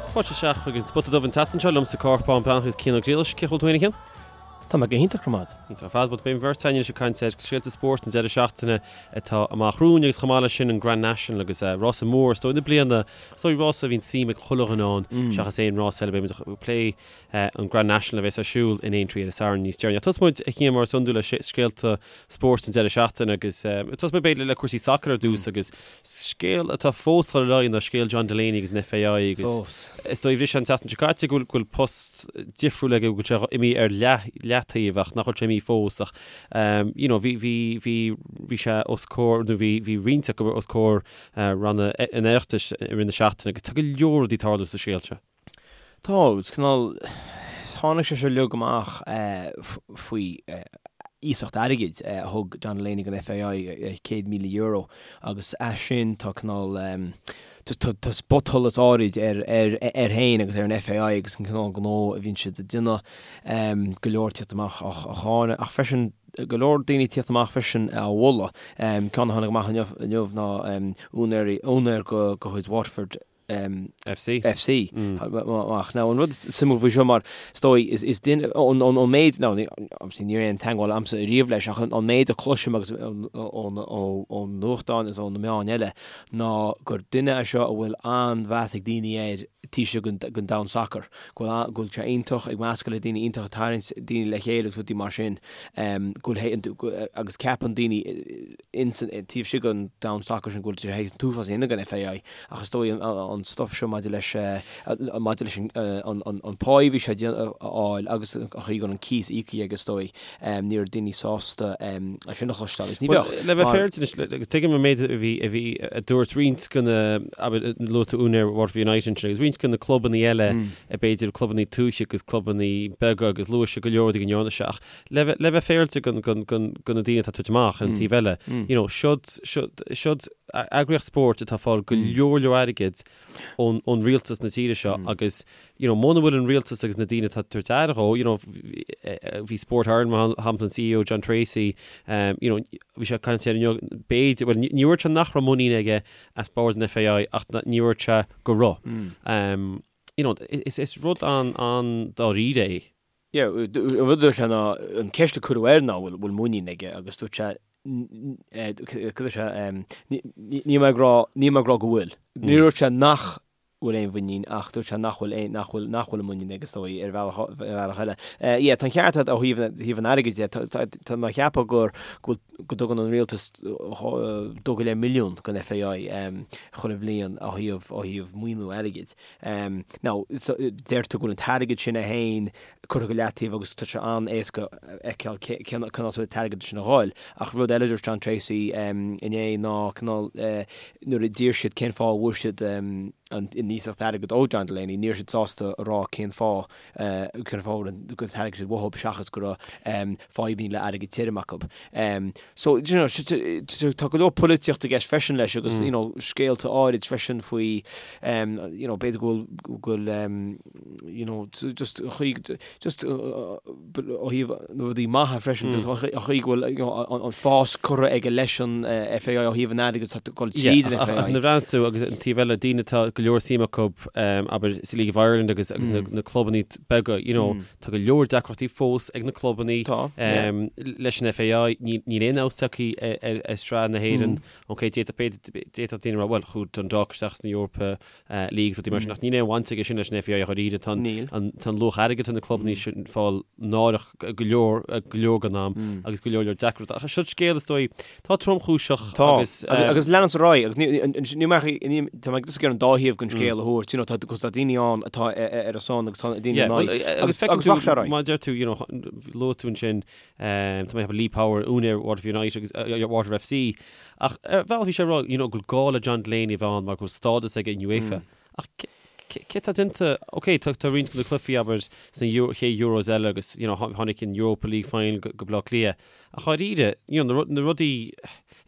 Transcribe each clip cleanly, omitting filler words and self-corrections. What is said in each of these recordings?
Fáilte isteach chuig an Spota Dubh an tseachtain seo, liomsa Cárthach Bán Breathnach agus Cian Ó Griallais. Cén chaoi a bhfuil tú féin, a Chian? Tá mé go hiontach, go raibh maith agat. Iontach ar fad. Bhuel, beidh an bheirt againn anois ag caint ar scéalta spóirt an deireadh seachtaine atá amach romhainn agus chomh maith leis sin an Grand National agus rása mór is dóigh na bliana, is dóigh rása a bhíonn suim ag chuile dhuine ann seachas aon rás eile. Beidh muid ag plé an Grand National a bheas ar siúl in Aintree ar an Satharn níos deireanaí. Ach tosóidh muid, a Chian, mar is iondúil le scéalta spóirt an deireadh seachtaine agus tosóidh muid b'fhéidir le cúrsaí sacair ar dtús agus Scéal atá fós ag dul ar aghaidh ná scéal John Delaney agus an FAI agus is dóigh bhris sé an tseachtain seo caite go bhfuil post difriúil aige, go bhfuil sé imithe ar leataobh ach nach bhfuil sé imithe fós ach you know bhí bhí bhí bhí sé os comhair nó bhí bhí roinnt acu os comhair ranna an Oireachtais i rith na seachtaine agus tá go leor rudaí ag tarlú sa scéal seo. Tá, agus cineál, tháinig sé seo uilig amach faoi iasacht airgid a thug John Delaney don FAI, €100,000, agus as sin tá cineál, tá spotsholas áirid air féin agus ar an FAI agus an cineál gnó a bhíonn siad ag déanamh, go leor ag tíocht amach á cháineadh ach freisin go leor daoine ag tíocht amach freisin á mholadh. Ceann a tháinig amach inniu ná úinéir de chuid Waterford, FC. FC. Amach. Now, an rud suimiúil faoi seo mar, is dóigh, is duine, an méid, now, obviously níl aon teagmháil a'msa ariamh leis, ach an méid a chloisim agus ón nuachtán is ó na meáin eile ná gur duine é seo a bhfuil an-mheas ag daoine air taobh istigh den domhan sacair, go bhfuil, go bhfuil sé iontach ag meascadh le daoine, iontach ag tarraingt daoine le chéile agus rudaí mar sin, go bhfuil, agus ceapann daoine ins an, taobh istigh den domhan sacair sin go bhfuil sé théis an t-uafás a dhéanamh don FAI ach is dóigh an stuff seo maidir leis, maidir leis an, an pá a bhí sé a fháil agus an chaoi go raibh an cíos íoctha aige is dóigh, ní raibh daoine sásta é sin a chloisteáil agus ní bheadh. Le bheith féaráilte anois, agus tuigim an méid a bhí, a bhí, a dúirt roinnt de na, abair, luaigh tú úinéir Waterford United ansin agus roinnt de na clubanna eile, b'fhéidir clubanna tuaithe agus clubanna beaga agus luaigh sé go leor rudaí go ndearna sé ach le bheith, le bheith féaráilte go, go, go, go na daoine atá ag tabhairt amach ar an taobh eile, you know, siod, siod, siod eagraíocht spóirt atá ag fáil go leor leor airgid ón, ón rialtas na tíre seo agus, you know, muna bhfuil an rialtas agus na daoine atá ag tabhairt aire dhó, you know, bhí Sport Ireland mar shampla, an CEO John Treacy, you know, bhí sé ag caint air inniu, b'fhéidir, bhuel, ní dúirt sé nach raibh muinín aige as bord an FAI ach ní dúirt sé go raibh. You know, is, is rud an, an-dáiríre é. Yeah, an rud a dúirt sé ná, an ceist a cuireadh air ná bhfuil muinín aige agus dúirt sé, cad dúirt sé, níl mé ag rá, níl mé ag rá go bhfuil. Ní dúirt sé nach bhfuil aon mhuinín ach dúirt sé nach bhfuil aon, nach bhfuil, nach bhfuil an muinín aige is dóigh ar bhealach, ar bhealach eile. Yeah, tá an ceart agat ó thaobh, thaobh an airgid de, tá, tá mé ag ceapadh gur, go bhfuil, go dtugann an rialtas 2.5 milliún don FAI chuile bhliain ó thaobh, ó thaobh maoiniú airgid. Now, deirtear go bhfuil an t-airgead sin é féin curtha go leataobh agus tá sé an-éasca a fheiceáil cén áit a bhfuil an t-airgead sin a dhul. Ach rud eile a dúirt John Treacy inné ná cineál nuair a d'iarr siad cén fáth a bhfuair siad an iasacht airgid ó John Delaney, ní raibh siad sásta a rá cén fáth cén fáth a bhfuil an t-airgead sin uathu seachas go raibh fadhbanna le airgead tirim acu. So, you know, tá go leor polaitíocht i gceist freisin leis agus, you know, scéalta áirid freisin faoi, you know, b'fhéidir go bhfuil, go bhfuil, you know, just an chaoi, just ó thaobh na rudaí maithe freisin, just an chaoi go bhfuil, you know, an fás curtha aige leis an FAI ó thaobh an airgid atá ag dul tríd an FAI. Ach nuair a bhreathnaíonn tú agus an taobh eile, daoine atá go leor suim acu, abair, sa League of Ireland agus agus na clubanna beaga, you know, Tá go leor deacrachtaí fós ag na clubanna leis an FAI. Níl aon fheabhas tagtha ar shraith na hÉireann. Ok, d'fhéadfadh d'fhéadfadh daoine a rá, bhuel, chuaigh Dundalk isteach sna Europa Leagues rudaí mar sin, ach níl aon bhaint aige sin leis an FAI ach oiread. Tá an luach airgid atá na clubanna sin ag fáil náireach go leor go leor den am agus go leor leor deacrachtaí. Ach seo scéal is dóigh Tá tromchúiseach Tá, agus. agus leanann ar aghaidh, agus ní, ní, ní, tá mé just ag iarraidh an dá thaobh den scéal a thabhairt, you know, tá, cos tá daoine ann atá ar a son agus tá daoine in aghaidh, agus agus rachaidh sé ar aghaidh. Má deir tú, you know, luaigh tú ansin, tá mé ag ceapadh Lee Power, úinéir Waterford United agus Waterford FC, ach ar bhealach bhí sé ag rá, you know, go bhfuil gá le John Delaney a bheith ann mar go bhfuil stádas aige in UEFA. Ach cé tá déanta, ok, tá tá roinnt de na cluichí, abair, sna Euro, chéad Euros eile agus, you know, tháinig an Europa League final go Baile Átha Cliath. Ach dháiríre, you know, na rudaí,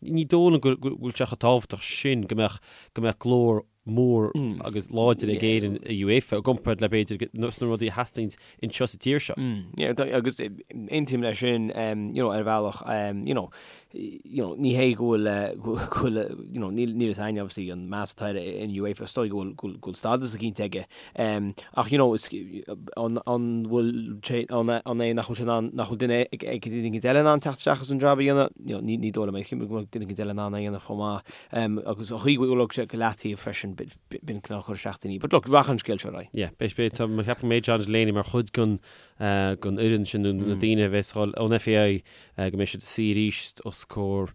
ní dóigh liom go bhfuil sé chomh tábhachtach sin go mbeadh, go mbeadh glór mór agus láidir ag Éirinn i UEFA i gcomparáid le b'fhéidir sna rudaí a theastaíonn anseo sa tír seo. Yeah, agus aontaím leis sin, you know, ar bhealach, you know. you know, ní hé go bhfuil, go bhfuil, you know, níl, níl a fhios againn obviously an meas atá air in UEFA, is dóigh go bhfuil, go bhfuil, go bhfuil stádas eicínt aige. Ach, you know, is, an, an bhfuil sé, an, an é nach bhfuil sé in ann, nach bhfuil duine ag, ag duine eicínt eile in ann teacht isteach agus an jab a dhéanamh? You know, ní, ní dóigh liom é, go mbeadh duine eicínt eile in ann é a dhéanamh chomh maith. Agus an chaoi go bhfuil sé go leataobh freisin, b'in cineál cur isteach daoine. But look, rachaidh an scéal seo ar aghaidh. Yeah, beidh, beidh, tá, mé ag ceapadh go mbeidh John Delaney mar chuid den, den fhoireann sin nó na daoine a bheas ag dul ón FAI go mbeidh siad ag suí arís os comhair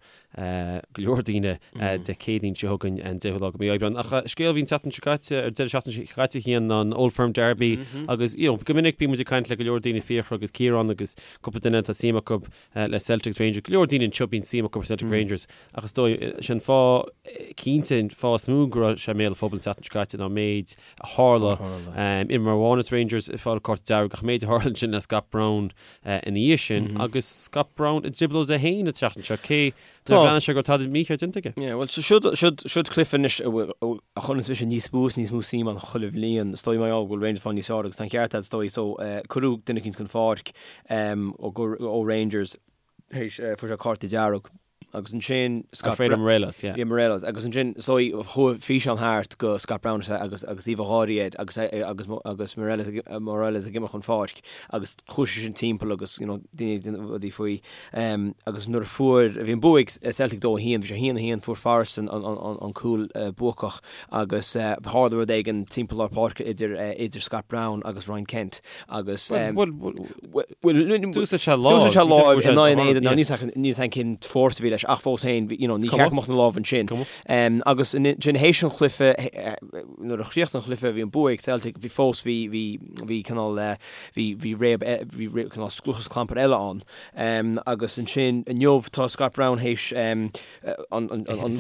go leor daoine Dé Céadaoin seo chugainn an 10ú lá de mhí Aibreáin. Ach scéal a bhí an tseachtain seo caite, ar deireadh seachtaine seo caite a Chian ná an Old Firm Derby agus you know go minic bíonn muid ag caint le go leor daoine, Fiachra agus Ciarán agus cúpla duine atá suim acu le Celtic agus Rangers, go leor daoine anseo bíonn suim acu Celtic Rangers ach is dóigh sin fáth cinnte an fáth is mó go raibh sé i mbéal an phobail an tseachtain seo caite ná an méid a tharla. Imreoir amháin as Rangers ag fáil cárta dearg ach an méid a tharla ansin le Scott Brown ina dhiaidh sin agus Scott Brown i dtrioblóid é féin an tseachtain seo, cé nár bhreathnaigh sé go raibh tada mícheart déanta aige. Yeah, bhuel, siod, siod, siod cluiche anois a chuireanns mise níos mó is níos mó suim ann chuile bhliain. Is dóigh mar gheall go bhfuil Rangers ag fáil níos fearr agus tá an ceart agat is dóigh. So, cuireadh duine eicínt chun pháirc ó Rangers théis, fuair sé cárta dearg. Agus ansin Scott Alfredo Morelos, yeah. Yeah, Morelos. Agus ansin, so chuaigh físeán thart go Scott Brown agus agus aoibh gháirí air agus agus agus Morelos Morelos ag imeacht chun pháirc agus chuaigh sé sin timpeall agus you know daoine ag déanamh rudaí faoi. Um, agus nuair a fuair bhí an bua ag Celtic 2-1, bhí sé 1-1 fuair Forrest an an an an cúl uh, buacach agus uh, tharla rud éigin timpeall lár páirce idir uh, idir Scott Brown agus Ryan Kent agus um, Well, well, D'úsáid sé lámh. D'úsáid sé lámh in aghaidh an éadain. Níl 's agam cén fórsa a bhí leis ach fós féin, you know, ní cheart go mbeadh na lámha ansin. Agus ansin théis an chluiche, nuair a chríochnaigh an chluiche, bhí an bua ag Celtic, bhí fós, bhí, bhí, bhí cineál, bhí, bhí réab, bhí cineál scluchas clampar eile ann. Agus ansin inniu tá Scott Brown théis an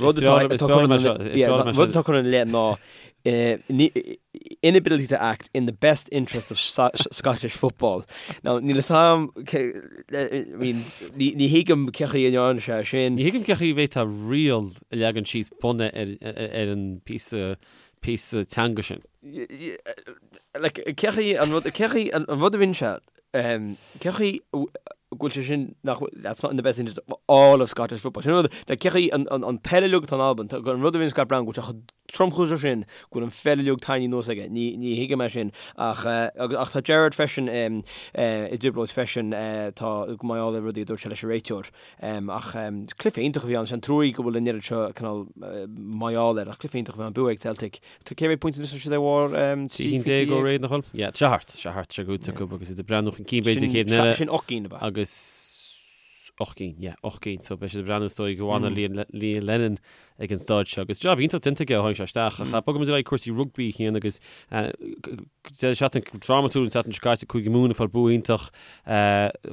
rud atá curtha ina leith ná inability to act in the best interest of Scottish football. Now, níl a fhios agam, I mean, ní thuigim cén chaoi a ndearna sé sin. Ní thuigim cén chaoi a bhféadfá riail a leagan síos bunaithe ar an píosa, píosa teanga sin. Like, cén chaoi an rud, cén chaoi an rud a rinne sé, cén chaoi go bhfuil sé sin nach bhfuil, that's not in the best interest of all of Scottish football. Sin an rud, like, cén chaoi an, an, an peil uilig atá in Albain, an rud a rinne Scott Brown go bhfuil sé chomh tromchúiseach sin go bhfuil an pheil uilig tarraingthe anuas aige. Ní, ní thuigim é sin. Ach, ach tá Gerrard freisin i dtrioblóid freisin, tá, mar gheall ar rudaí a dúirt sé leis an réiteoir. Ach cluiche iontach a bhí ann, is an truaí go bhfuil an oiread seo cineál mar gheall air, ach cluiche iontach a bhí ann, bua ag Celtic. Tá cé mhéad pointe anois tá siad ar bharr 13 cinn ó réidh nach bhfuil? Yeah, tá sé thart, tá sé thart, tá sé gnóthaithe acu agus iad ag breathnú chun cinn b'fhéidir an chéad eile. Sin 8 gcinn ab ea? Agus 8 gcinn, yeah, 8 gcinn. So beidh siad ag breathnú is dóigh go bhfanfaidh Liam Lennon ag an staid seo. Agus jab iontach déanta aige ó tháinig sé isteach. Ach bogfaidh muid ar aghaidh cúrsaí rugbaí a Chian agus Deireadh seachtaine drámatúil an tseachtain seo caite, Cúige Mumhan ag fáil bua iontach,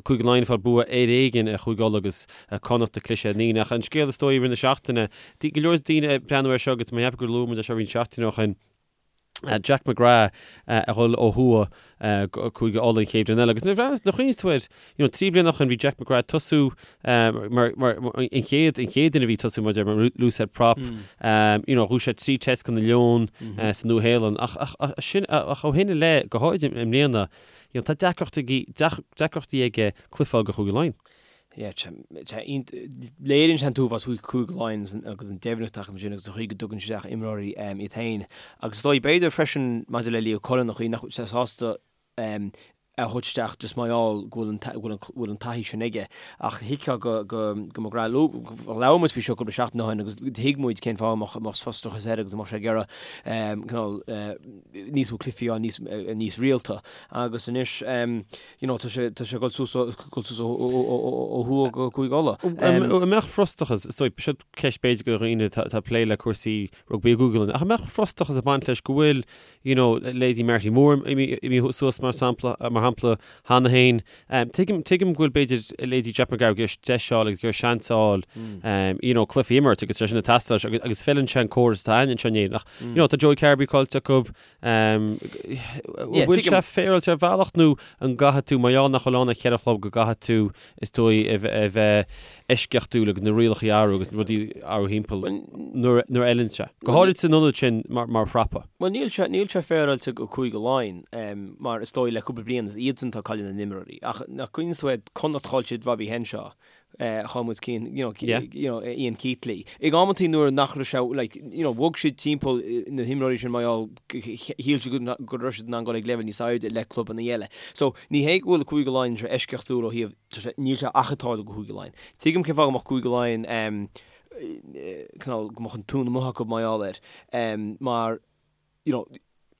Cúige Laighean ag fáil bua ar éigean ar Chúige Uladh agus Connacht ag cliseadh ar ndaoine. Ach an scéal is dóigh i rith na seachtaine, go leor daoine ag breathnú air seo agus mé ag ceapadh gur luaigh muid é seo roinnt seachtainí ó shin, Jack McGrath a dhul ó thuaidh go Cúige Uladh an chéad bhliain eile. Agus nuair a chuimhníos tú air, you know, 3 bliana ó shin bhí Jack McGrath ag tosú mar, mar, an chéad, an chéad duine a bhí ag tosú mar mar loosehead prop, you know, ghnóthaigh sé 3 test do na Leoin sa Nua-Shéalainn. Ach, ach, ach, sin, ach ó shin i leith, go háirid i mbliana, you know, tá deacrachtaí, deacrachtaí aige cluiche a fháil do Chúige Laighean. Yeah, tá, léiríonn sé an t-uafás faoi Chúige Laighean agus an deimhneacht acu sin agus an chaoi go dtugann siad isteach imreoirí iad féin. Agus is dóigh, b'fhéidir freisin maidir le Leo Cullen, an chaoi nach bhfuil sé sásta a thabhairt isteach just mar gheall go bhfuil an bhfuil an taithí sin aige. Ach thuigfeá go go go McGrath labhair muid faoi seo cúpla seachtain ó shin agus thuig muid cén fáth a mbeadh mbeadh frustrachas air agus a mbeadh sé ag iarraidh cineál níos mó cluichí a fháil níos níos rialta. Agus anois you know tá sé tá sé ag dul suas dul suas ó ó thuaidh go Cúige Uladh. An mbeadh frustrachas, is dóigh, seo ceist b'fhéidir do dhaoine atá ag plé le cúrsaí rugbaí i gCúige Uladh, ach an mbeadh frustrachas ag baint leis go bhfuil you know, leithéidí Marty Moore imithe suas mar sampla, mar shampla cheana féin. Tuigim, tuigim go bhfuil b'fhéidir leithéidí Jack McGrath ag iarraidh deis a fháil agus ag iarraidh seans a fháil, you know, cluichí a imirt agus sé sin ag teastáil leis agus, agus feileann sé an córas atá ann anseo in Éirinn. Ach, you know, tá Joey Carbery caillte acu, an bhfuil sé féaráilte ar bhealach nó an gcaithfidh tú, mar gheall nach bhfuil ann ach cheithre chlub, go gcaithfidh tú is dóigh a bheith eisceachtúil agus na rialacha a athrú agus na rudaí a athrú thimpeall nuair a fheileann sé. Go háirid san ionad sin mar phrapa. Bhuel níl sé, níl sé féaráilte go Cúige Laighean mar is dóigh le cúpla bliain is iadsan atá ag cailleadh na n-imreoirí. Ach nach gcuimhníonn tú ar Connacht chaill siad Robbie Henshaw. Chaill muid Cian, you know, Yeah. you know, Ian Keatley. Ag amantaí nuair nach raibh sé, like, you know, bhog siad timpeall na himreoirí sin mar gheall shíl siad go go raibh siad in ann dul ag leibhéal níos airde le clubanna eile. So, ní hé go bhfuil Cúige Laighean seo eisceachtúil ó thaobh, tá sé, níl sé ach ag tarlú go Cúige Laighean. Tuigim cén fáth go mbeadh Cúige Laighean, em, cineál, go mbeadh an tóin amuigh acu mar gheall air, em, mar, you know,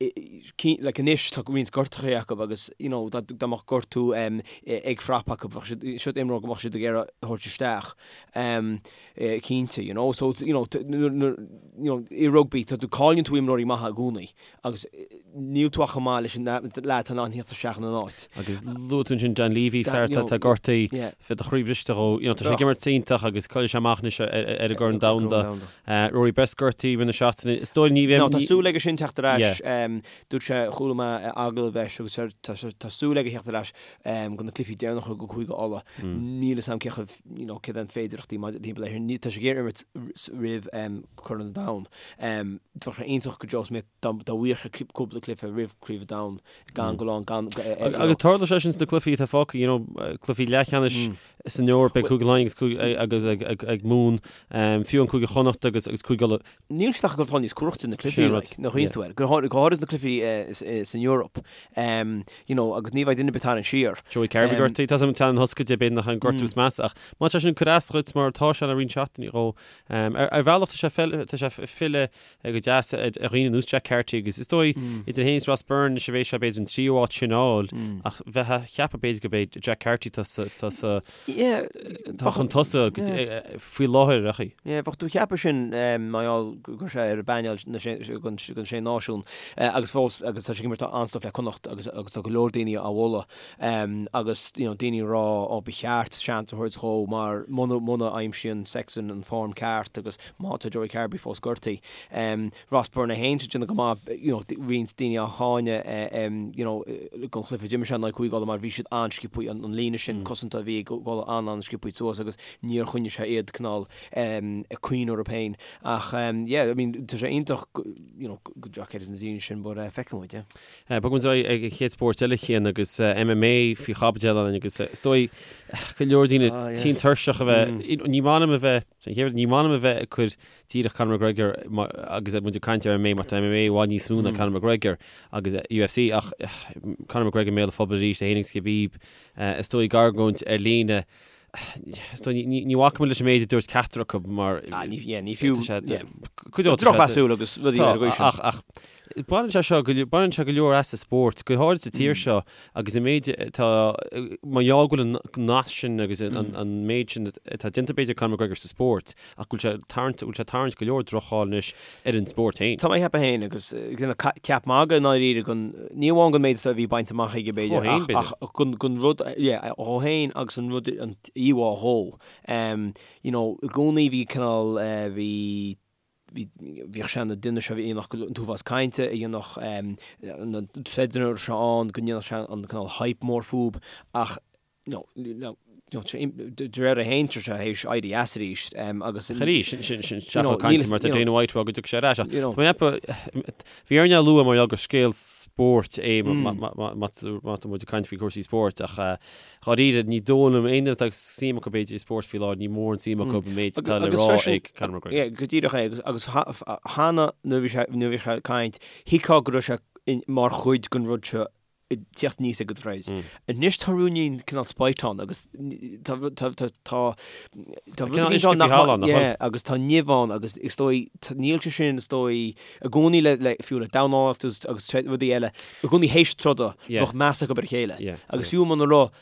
like anois tá roinnt gortuithe acu agus you know dá dá mbeadh gortú em ag frap acu bheadh siad siod imreoir go mbeadh siad ag iarraidh a thabhairt isteach em cinnte you know so you know nuair you know i rugbaí tá tú cailleann tú imreoirí maithe i gcónaí agus níl tú ach chomh maith leis an leaid atá in ann theacht isteach ina n-áit. Agus luaigh tú ansin Dan Leavy, fear atá atá gortaithe, yeah. bheadh do chroí briste dhó, you know tá sé ag imirt iontach agus caillfidh sé amach anois ar ar an gCorn Domhanda. Rory Best gortaithe i rith na seachtaine. Is dóigh ní bheidh. Tá súil aige sin teacht ar ais. Dúirt sé, chuala mé agallamh leis agus tá súil aige theacht ar ais go na cluichí deireanacha go Cúige Uladh. Níl fhios a'm cé chomh, you know, céard é an féidireachtaí maidir timpeall air sin. Tá sé ag iarraidh imirt roimh Corn an Domhain. Bheadh sé iontach go Joe Schmidt dá bhfaigheadh sé cúpla cluiche roimh Craobh an Domhain gan go lán gan. Agus tarlóidh sé sin sna cluichí atá fágtha, you know, cluichí leathcheannais san Eoraip ag Cúige Laighean agus ag Mumhan, fiú an Cúige Chonnacht agus Cúige Uladh. Níl siad ach ag fáil níos cumhachtaí na cluichí, like, nach iontas tú air, go háirid na cluichí san Eoraip, you know, agus ní bheidh duine ar bith tarraingt siar. Joey Carbery gortaithe, tá an teann thoscaide b'fhéidir nach an gortú is measa ach má tá sin ag cur as dhuit mar atá sé le roinnt seachtainí dhó, ar bhealach tá sé filleadh go deas ar dhaoine ar nós Jack Carty agus is dóigh idir féin is Ross Byrne anois a bheidh sé b'fhéidir an tríú áit sin a fháil ach bheifeá ag ceapadh b'fhéidir go b'é Jack Carty tá sa tá sa tá chun tosaigh faoi láthair ach í. Bheadh tú ag ceapadh sin mar gheall go raibh sé ar an bpainéal don Sé Náisiún agus fós agus tá sé ag imirt an-stuif le Connacht agus agus tá go leor daoine á mholadh agus you know daoine ag rá ó ba cheart seans a thabhairt dhó mar muna muna aimsíonn Sexton an form ceart agus Má tá Joey Carbery fós gortaithe. Ross Byrne é féin ag déanamh go maith, you know, roinnt daoine á cháineadh, you know, don chluiche a d'imir sé in aghaidh Cúige Uladh mar bhí siad an-sciobthaí, an líne sin cosanta a bhí ag Uladh an-an-sciobthaí suas agus níor choinnigh sé iad cineál ag cuimhneamh orthu féin. Ach yeah, I mean, tá sé iontach, you know, go Jack Carty na daoine sin but feicfidh muid, yeah. Bogfaidh muid ar aghaidh ag an chéad spórt eile Cian agus MMA faoi chaibidil againn agus is dóigh go leor daoine tinn tuirseach a bheith, ní maith liom a bheith, Sin chéad rud, ní maith liom a bheith ag cur díreach Conor McGregor agus muid ag caint ar MMA mar tá MMA i bhfad níos mó ná Conor McGregor agus UFC ach Conor McGregor i mbéal an phobail arís, é féin agus Khabib, is dóigh ag argóint ar líne. Is dóigh ní ní bhacfaidh muid leis an méid a dúirt ceachtar acu mar Ah, ní yeah, ní fiú tá sé yeah. cuid de Drochmheasúil agus rudaí ar an gcaoi sin. Ach ach Baineann sé seo, baineann sé go leor as an spórt, go háirid sa tír seo agus an méid atá, mar gheall go bhfuil an nasc sin agus an méid sin atá déanta b'fhéidir ag Conor McGregor sa spórt ach go bhfuil sé ag tarraingt, go bhfuil sé ag tarraingt go leor droch-cháil anois ar an spórt féin. Tá mé ag ceapadh féin agus ag déanamh ceap magaidh i ndáiríre gon, ní amháin gon méid a bhí bainte amach aige b'fhéidir ach, ach gon, gon rud, yeah, dhó féin agus an rud, an íomhá dhó. You know, i gcónaí bhí cineál, bhí, bhí, bhíodh sé ina duine seo a dhéanfadh an t-uafás cainte, a dhéanfadh na threadanna seo ann, go ndéanfadh sé an cineál hype mór fúb ach you know, you know, de réir é féin tá sé théis éirí as arís agus Arís, sin, sin, sin seafóid cainte mar tá Dana White ag rá go dtiocfaidh sé ar ais ach tá mé ag ceapadh, bhí orainn é a lua mar gheall gur scéal spóirt é má tá muid ag caint faoi chúrsaí spóirt ach Dháiríre, ní dóigh liom, aon duine atá suim acu b'fhéidir i spórt faoi láthair, ní mórán suim acu an méid atá le rá ag Conor McGregor. Yeah, go díreach é, agus agus cheana nuair a bhí sé nuair a bhí sé ag caint, thuigfeá go raibh sé mar chuid den rud seo ag tíocht aníos ag an troid. Anois tá ruainnín cineál spite ann agus tá tá tá tá tá rud éigin ann nach maith, yeah, agus tá nimh ann agus is dóigh níl sé sin is dóigh i gcónaí le le fiú le dornálaíocht agus agus rudaí eile, i gcónaí théis troda bheadh meas acu ar a chéile agus fiú muna raibh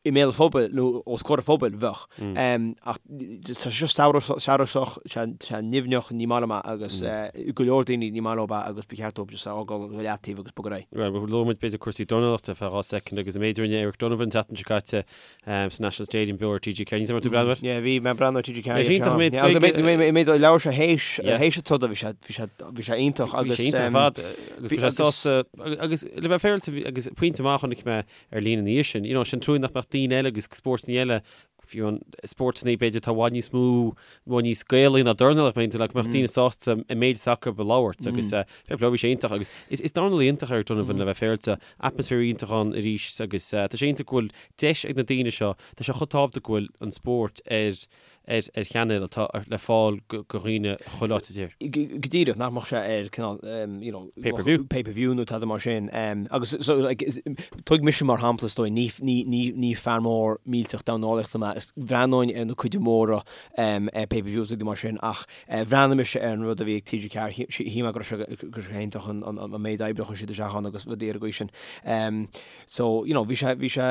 i mbéal an phobail nó os comhair an phobail bheadh. Ach tá sé seo samhrasach, sé nimhneach, ní maith liom é agus go leor daoine ní maith leo é agus ba cheart dóibh just é a fhágáil go leataobh agus bogadh ar aghaidh. Bhuel, luaigh muid b'fhéidir cúrsaí dornálaíochta ar feadh 2 soicind agus an méid a rinne Eric Donovan an tseachtain seo caite sa National Stadium beo ar TG4. Níl 's agam an raibh tú ag breathnú air? Yeah, bhí mé ag breathnú ar TG4. Bhí sé iontach méid Gaeilge. Méid a labhair sé théis théis an troda bhí sé bhí sé bhí sé iontach agus Bhí sé iontach ar fad agus bhí sé sásta agus le bheith féaráilte agus pointe maith a chonaic mé ar líne ina dhiaidh sin, you know, sin trua nach mbeadh daoine eile agus spórtanna eile. fiú an spórtanna b'fhéidir atá i bhfad níos mó, i bhfad níos Gaelaí ná dornálaíocht, b'fhéidir, go mbeadh daoine sásta an méid atá acu a labhairt agus fair play, bhí sé iontach agus is is dornálaí iontach Eric Donovan le bheith féaráilte, atmaisféar iontach ann arís agus tá sé iontach go bhfuil deis ag na daoine seo, tá sé chomh tábhachtach go bhfuil an spórt ar ar ar chainéal atá le fáil go go dhaoine chuile áit sa tír. Go díreach, nach mbeadh sé ar cineál you know Pay per view. pay per view nó tada mar sin. Agus so like is tóg mise mar shampla is dóigh, ní ní ní ní fear mór millteach dornálaíochta mé, is bhreathnóinn ar na cuid mhóra ar pay per views rudaí mar sin ach bhreathnaigh mise ar an rud a bhí ag TG4, shíl mé go raibh sé go raibh sé iontach an an an méid oibre a chuir siad isteach ann agus rudaí ar an gcaoi sin. So, you know, bhí sé, bhí sé,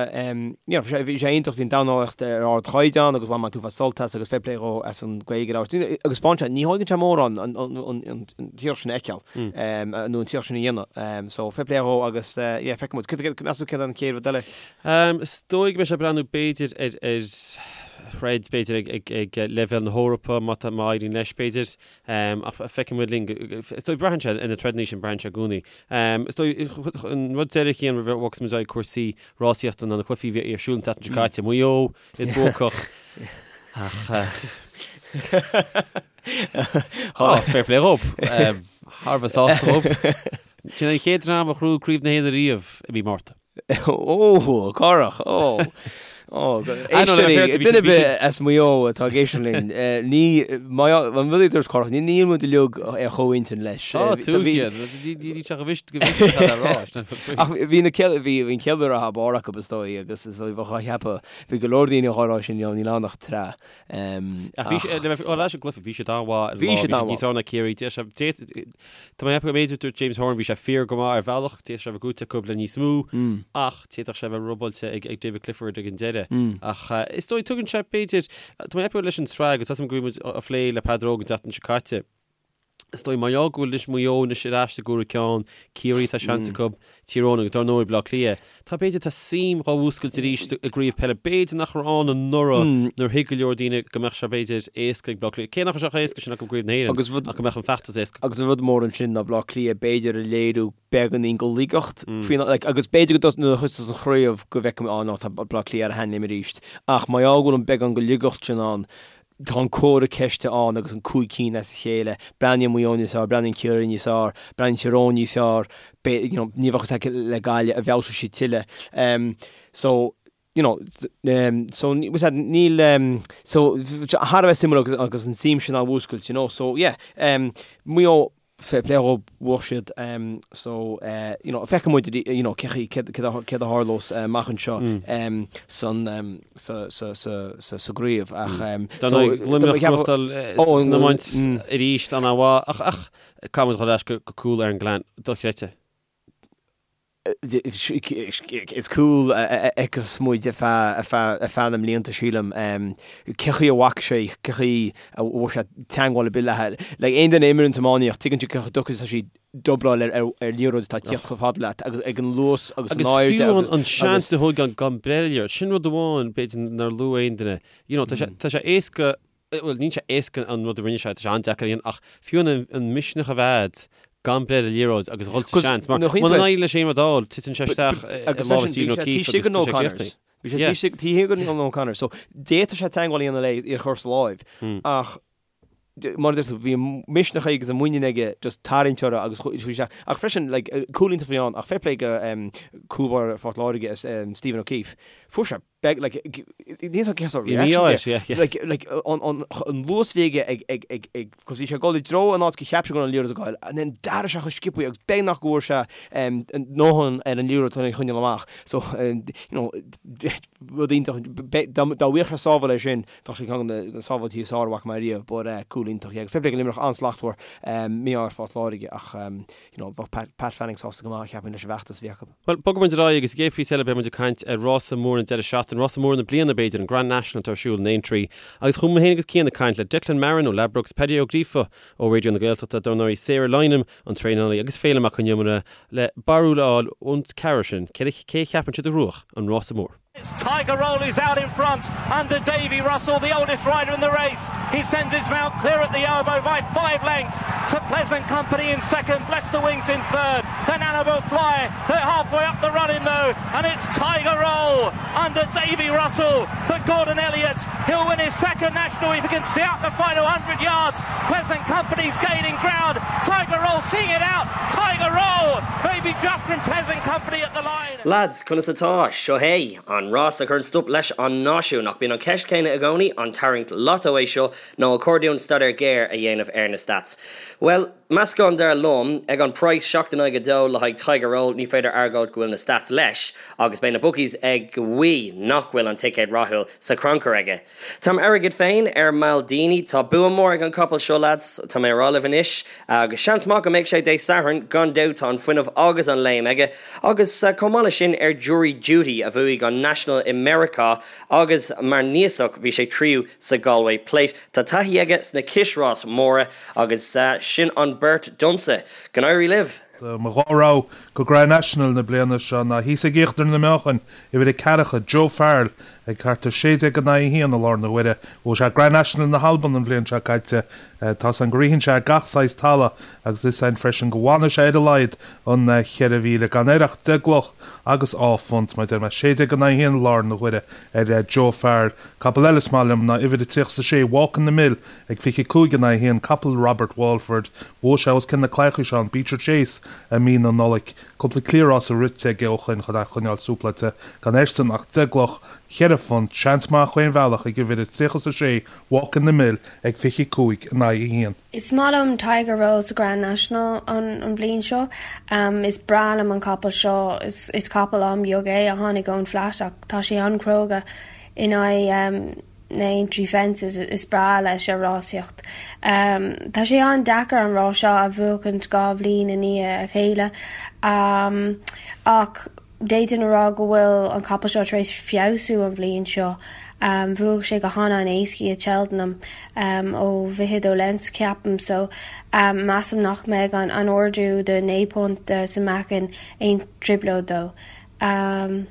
you know, bhí sé, bhí sé iontach, bhí an dornálaíocht ar ardchaighdeán agus bhain mé an t-uafás sult as agus fair play dhó as an Ghaeilge a labhairt. Agus spáin sé, ní thógann sé mórán an, an, an, an, an t-iarracht sin a fheiceáil, nó an t-iarracht sin a dhéanamh. So, fair play dhó agus, yeah, feicfidh muid. Cad, cad, meas tú céard an chéad rud eile? Is dóigh go mbeidh sé ag breathnú b'fhéidir ar, ar throid, b'fhéidir ag, ag, ag leibhéal na hEorpa, má tá, má éiríonn leis, b'fhéidir. Ach feicfidh muid linn. Is dóigh, braitheann sé ar na troideanna sin, braitheann sé i gcónaí. Is dóigh, an rud deiridh a Chian roimh a bhogfas muid ar aghaidh cúrsaí rásaíochta ná na cluichí a bhí ar siúl an tseachtain seo caite. Maigh Eo, iad buacach. Ach Á, fair play dhób. Thar a bheith sásta dhób. Sin an chéad dream a ghnóthaigh Craobh na hÉireann ariamh i mí Márta. Ó, corrach, ó. Ó, éisteoirí, duine ar bith as Maigh Eo atá ag éisteacht linn, ní, an rud a dúirt Corrach, ní níl muid uilig ar chomhintinn leis. Ó, tú iad, ní teach a bhist go bhist a rá. Ach bhí na céad, bhí an chéad uair a barr acu is dóigh agus is dóigh bheadh á cheapadh, bhí go leor daoine á rá sin, níl ann ach tráth. Ach bhí sé, le bheith ar ais an gcluiche, bhí siad an-mhaith ar an lá, bhí siad níos fearr ná Ciarraí. Tá mé ag ceapadh go mb'fhéidir, dúirt James Horan, bhí sé fíor go maith ar bhealach, d'fhéadfadh sé a bheith gnóite acu le níos mó, ach d'fhéadfadh sé a bheith robáilte ag David Clifford ag an deireadh. Ach is dóigh, tugann sé, b'fhéidir, tá mé ag ceapadh leis an tsraith, agus tá 's agam go raibh muid á phlé le Peadar Óg an tseachtain seo caite, Is dóigh, mar gheall go bhfuil anois Maigh Eo anois ar ais i gcomhaireamh ceann, Ciarraí tá seans acu, Tír Eoghain agus dar ndóigh Baile Átha Cliath. Tá b'fhéidir, tá suim dhá mhúscailt arís i gcraobh peile. B'fhéidir nach raibh ann anuraidh nuair a thuig go leor daoine go mbeadh sé b'fhéidir éasca ag Baile Átha Cliath. Cé nach raibh sé chomh héasca sin acu i gcraobh na hÉireann ach go mbeadh an feachtas éasca. Agus an rud mór ansin ná Baile Átha Cliath b'fhéidir a léiriú beagáinín go laigeacht faoin like agus b'fhéidir go nuair a thosós an chraobh go bhfeicfimid á no tá Baile Átha Cliath ar a sheanléim arís ach mar gheall go bhfuil an beagán go laigeacht sin ann Tá an comhartha ceiste ann agus an 5 cinn as a chéile. Breathnaíonn Maigh Eo níos fearr, breathnaíonn Ciarraí níos fearr, breathnaíonn Tír Eoghain níos fearr, you know, ní bheadh a fhios le Gaillimh an bhfeabhsóidh siad tuilleadh. So, you know, so níl, so thar a bheith suimiúil agus agus an tsuim sin á mhúscailt, you know, so yeah, Maigh Eo, fair play dhóibh, bhuaigh siad so you know feicfidh muid you know cé chaoi céard a tharlós amach anseo san sa sa sa sa sa gcraobh ach so Luimneach gnóthachtáil san iomáint arís an-mhaith ach ach caithfidh muid dhul ar ais go cúl Aaron Gillane dochreidte. Is cúl a fheicfeas muid ar feadh na mblianta, sílim. Cé chaoi a bhfaca sé, cé chaoi a bhfuair sé teagmháil ar bith léi. Like, aon duine a imríonn iománaíocht, tuigeann siad cé chomh deacair is atá sé dubláil ar liathróid atá ag tíocht chomh fada leat agus ag an luas agus an airde agus. Agus fiú an seans a thógáil gan breith ar an liathróid, sin rud amháin b'fhéidir nár luaigh aon duine. You know, tá sé éasca bhuel, níl sé éasca an rud a rinne sé, tá sé an-deacair a dhéanamh, ach fiú an misneach a bheith agat gan breith ar an liathróid agus a dhul sa seans, mar muna n-éiríonn leis aon rud a fháil, titeann sé isteach i lámha Stephen O'Keefe agus tá sé críochnaithe. Bhí sé taobh thiar den O'Connor, so d'fhéadfadh sé teagmháil a dhéanamh léi í a chur sa láimh, ach mar a deir tú, bhí an misneach aige agus an muinín aige just tarraingt uirthi agus chuaigh isteach. Ach freisin, like, cúl iontach a bhí ann, ach fair play go cúl báire Phort Láirge, Stephen O'Keefe, fuair sé Beidh, like, níl a fhios agam cén sórt reaction a bhí air. Like, like, an, an, an luas a bhí aige ag, ag, ag, ag, cos bhí sé ag dul i dtreo an áit go cheap sé go raibh an liathróid ag goil, and then d'athraigh sé chomh sciobtha agus beagnach go bhfuair sé, em, ndóthain ar an liathróid chun é a choinneáil amach. So, em, you know, rud iontach, be, dá, dá bhfaigheadh sé sábháil air sin, bheadh sé ceann de na sábháiltí is fearr a bhfaca mé riamh, but, eh, cúl iontach, yeah. Agus fair play go Luimneach, an-slachtmhar, em, mí-ádh ar Phort Láirge ach, em, you know, bheadh Pat, Pat Fanning sásta go maith, cheapfainn, leis an bhfeachtas a bhí acu. Bhuel, bogfaidh muid ar aghaidh agus sa gcéad phíosa eile beidh muid ag caint ar rása mór an deireadh seachtaine, rása mór na bliana b'fhéidir, an Grand National atá ar siúl in Aintree. Agus chuaigh mé féin agus Cian ag caint le Declan Marron ó Ladbrokes, Paddy Ó Gríofa ó Raidió na Gaeltachta, dar ndóigh Sarah Lynam, an traenálaí, agus Féilim Mac Con Iomaire le barúil a fháil ón ceathrar sin, cé a cheapann siad a ghnóthóidh an rása mór. It's Tiger Roll who's out in front under Davy Russell, the oldest rider in the race. He sends his mount clear at the elbow by five lengths to Pleasant Company in second, Bless the Wings in third, then Annabel Fly. They're halfway up the running though. elbow and it's Tiger Roll under Davy Russell for Gordon Elliott. He'll win his second national if he can see out the final 100 yards. Pleasant Company's gaining ground. Tiger Roll seeing it out. Tiger Roll maybe just from Pleasant Company at the line. Lads, conas atá? Seo é, an rás a chuireann stop leis an náisiún. Ach bíonn an cheist chéanna i gcónaí, an tarraingt lotto é seo nó ar chóir dúinn staidéar géar a dhéanamh ar na stats? Bhuel, meascán dar liom. Ag an praghas 7 in aghaidh 2 le haghaidh Tiger Roll, ní féidir argóint go bhfuil na stats leis agus beidh na bookies ag guí nach bhfuil an ticéad rathúil sa chrannchur aige. Tá m'airgead féin ar Maldini. Tá bua mór ag an capall seo lads, tá mé a rá libh anois agus seans maith go mbeidh sé Dé Sathairn, gan dabht tá an fuinneamh agus an léim aige agus chomh maith leis sin ar Jury Duty a bhuaigh an National i Meiriceá agus mar núíosach bhí sé tríú sa Galway Plate. Tá taithí aige sna cisráis móra agus sin an beart domsa. Go n-éirí libh! Mo dhá rogha go Grand National na bliana seo ná thíos ag íochtar na meáchain, uimhir a ceathracha, Joe Farrell, ag thart ar 16 in aghaidh 1 i láthair na huaire. Bhuaigh sé Grand National na hAlban an bhliain seo caite. Tá's againn go ritheann sé ar gach saghas talamh agus is ann freisin go bhfanfaidh sé ar a laghad an 4,000 gan air ach deich gcloch agus dhá phunt. Mar a deir mé, 16 in aghaidh 1 i láthair na huaire ar Joe Farrell. Capall eile is maith liom ná uimhir a 36, Walk in the Mill, ag 25 in aghaidh 1, capall Robert Walford. Bhuaigh sé os cionn na claíocha seo an Beecher Chase i mí na Nollag. Cúpla cliathrás rite aige ó shoin chun é a choinneáil súpláilte. Gan airsean ach deich gcloch, cheithre phunt, seans maith chaon bhealach ag uimhir a 36, Walk in the Mill, ag 25 in aghaidh 1. Is maith liom Tiger Roll sa Grand National an bhliain seo. Is breá liom an capall seo. Is capall an-bheag é a tháinig ón Flat ach tá sé an-chróga in aghaidh na Aintree fences. Is breá leis a rásaíocht. Tá sé an-deacair an rás seo a bhuachaint 2 bhliain i ndiaidh a chéile ach d'fhéadfainn a rá go bhfuil an capall seo tar éis feabhsú an bhliain seo. Bhuaigh sé go han-an-éascaí i Cheltenham ó 22 lengths ceapaim so measaim nach mbeidh an ardú de 9 punt sa meáchan aon trioblóid dó. Ba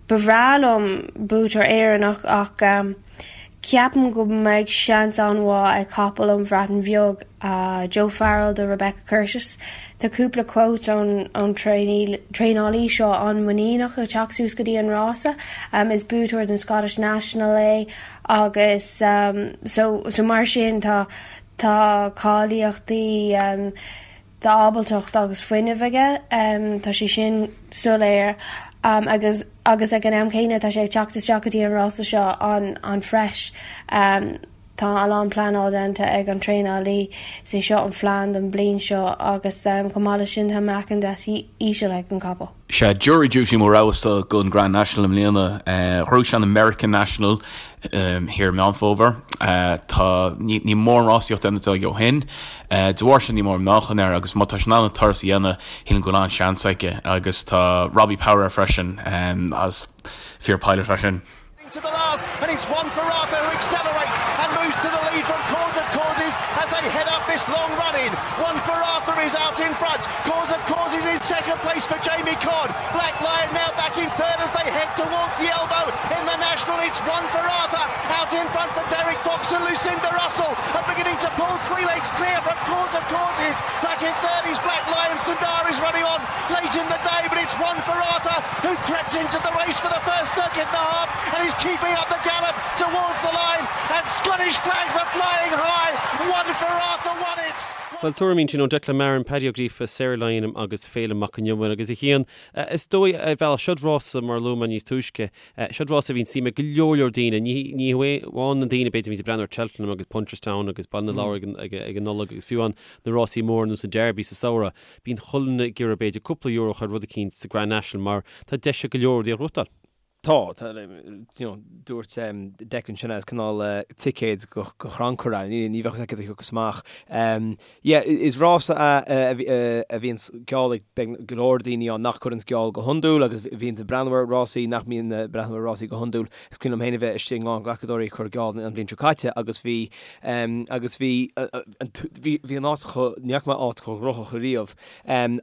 bhreá liom buaiteoir Éireannach ach ceapaim go mbeidh seans an-mhaith ag capall ón Bhreatain Bheag, Joe Farrell do Rebecca Curtis. Tá cúpla quote ón traenálaí seo an-mhuiníneach ag teacht suas go dtí an rása. Is buaiteoir den Scottish National é agus so mar sin tá cáilíochtaí Tá ábaltacht agus fuinneamh aige, tá sé sin soiléir agus agus ag an am céanna tá sé ag teacht isteach go dtí an rása seo an-fresh. Tá a lán pleanáil déanta ag an traenálaí, is é seo an phlean don bliain seo agus chomh maith leis sin tá meáchan deas íseal ag an capall. Sea, Jury Duty mo rogha-sa don Grand National i mbliana. Ghnóthaigh sé an American National thiar i Meán Fómhair. Tá, ní mórán rásaíocht déanta aige ó shin. De bharr sin níl mórán meáchan air agus má tá sé in ann an turas a dhéanamh, shílim go bhfuil an-seans aige. Agus tá Robbie Power air freisin as fear pilot é sin. To the last and it's one for Arthur who accelerates and moves to the lead from Cause of Causes as they head up this long run in. One for Arthur is out in front. Cause of Causes in second place for Jamie Codd. Black Lion now back in third as they head towards the elbow in the National. It's one for Arthur out in front for Derek Fox and Lucinda Russell are beginning to pull three lengths clear from Cause of Causes. Back in third is Black Lion. Sundar is running on late in the day, but it's one for Arthur who crept into the race for the first circuit and a half and is keeping up the gallop towards the line and Scottish flags are flying high. One for Arthur won it. Bhuel, tuairimí ansin ó Declan Marron, Paddy Ó Gríofa, Sarah Lynam agus Féilim Mac Con Iomaire agus a Chian, is dóigh, ar bhealach, seod rása mar a luaigh mé níos túisce, seod rása a bhíonn suim ag go leor leor daoine, ní ní hamháin na daoine b'fhéidir a bhíonns ag breathnú ar Cheltenham agus Punchestown agus Baile na Lobhar ag ag an Nollaig agus fiú amháin na rásaí móra ar nós an Derby sa samhradh, bíonn chuile dhuine ag iarraidh b'fhéidir cúpla euro a chur ar rud eicínt sa Grand National mar tá deis ag go leor rudaí a ghnóthachtáil. Tá, tá, you know, dúirt Declan sin as cineál ticéad go chrannchur é, ní ní bheadh a fhios agat cad a thiocfas amach. Yeah, is rása é a bhíonns geall ag go leor daoine ann nach gcuireanns geall go hiondúil agus bhíonns ag breathnú ar rásaí nach mbíonn ag breathnú ar rásaí go hiondúil. Is cuimhin liom féin a bheith istigh i nGlacadóirí ag cur geall an bhliain seo caite agus bhí agus bhí bhí an áit chomh, ní fhaca mé áit chomh gnóthach ariamh.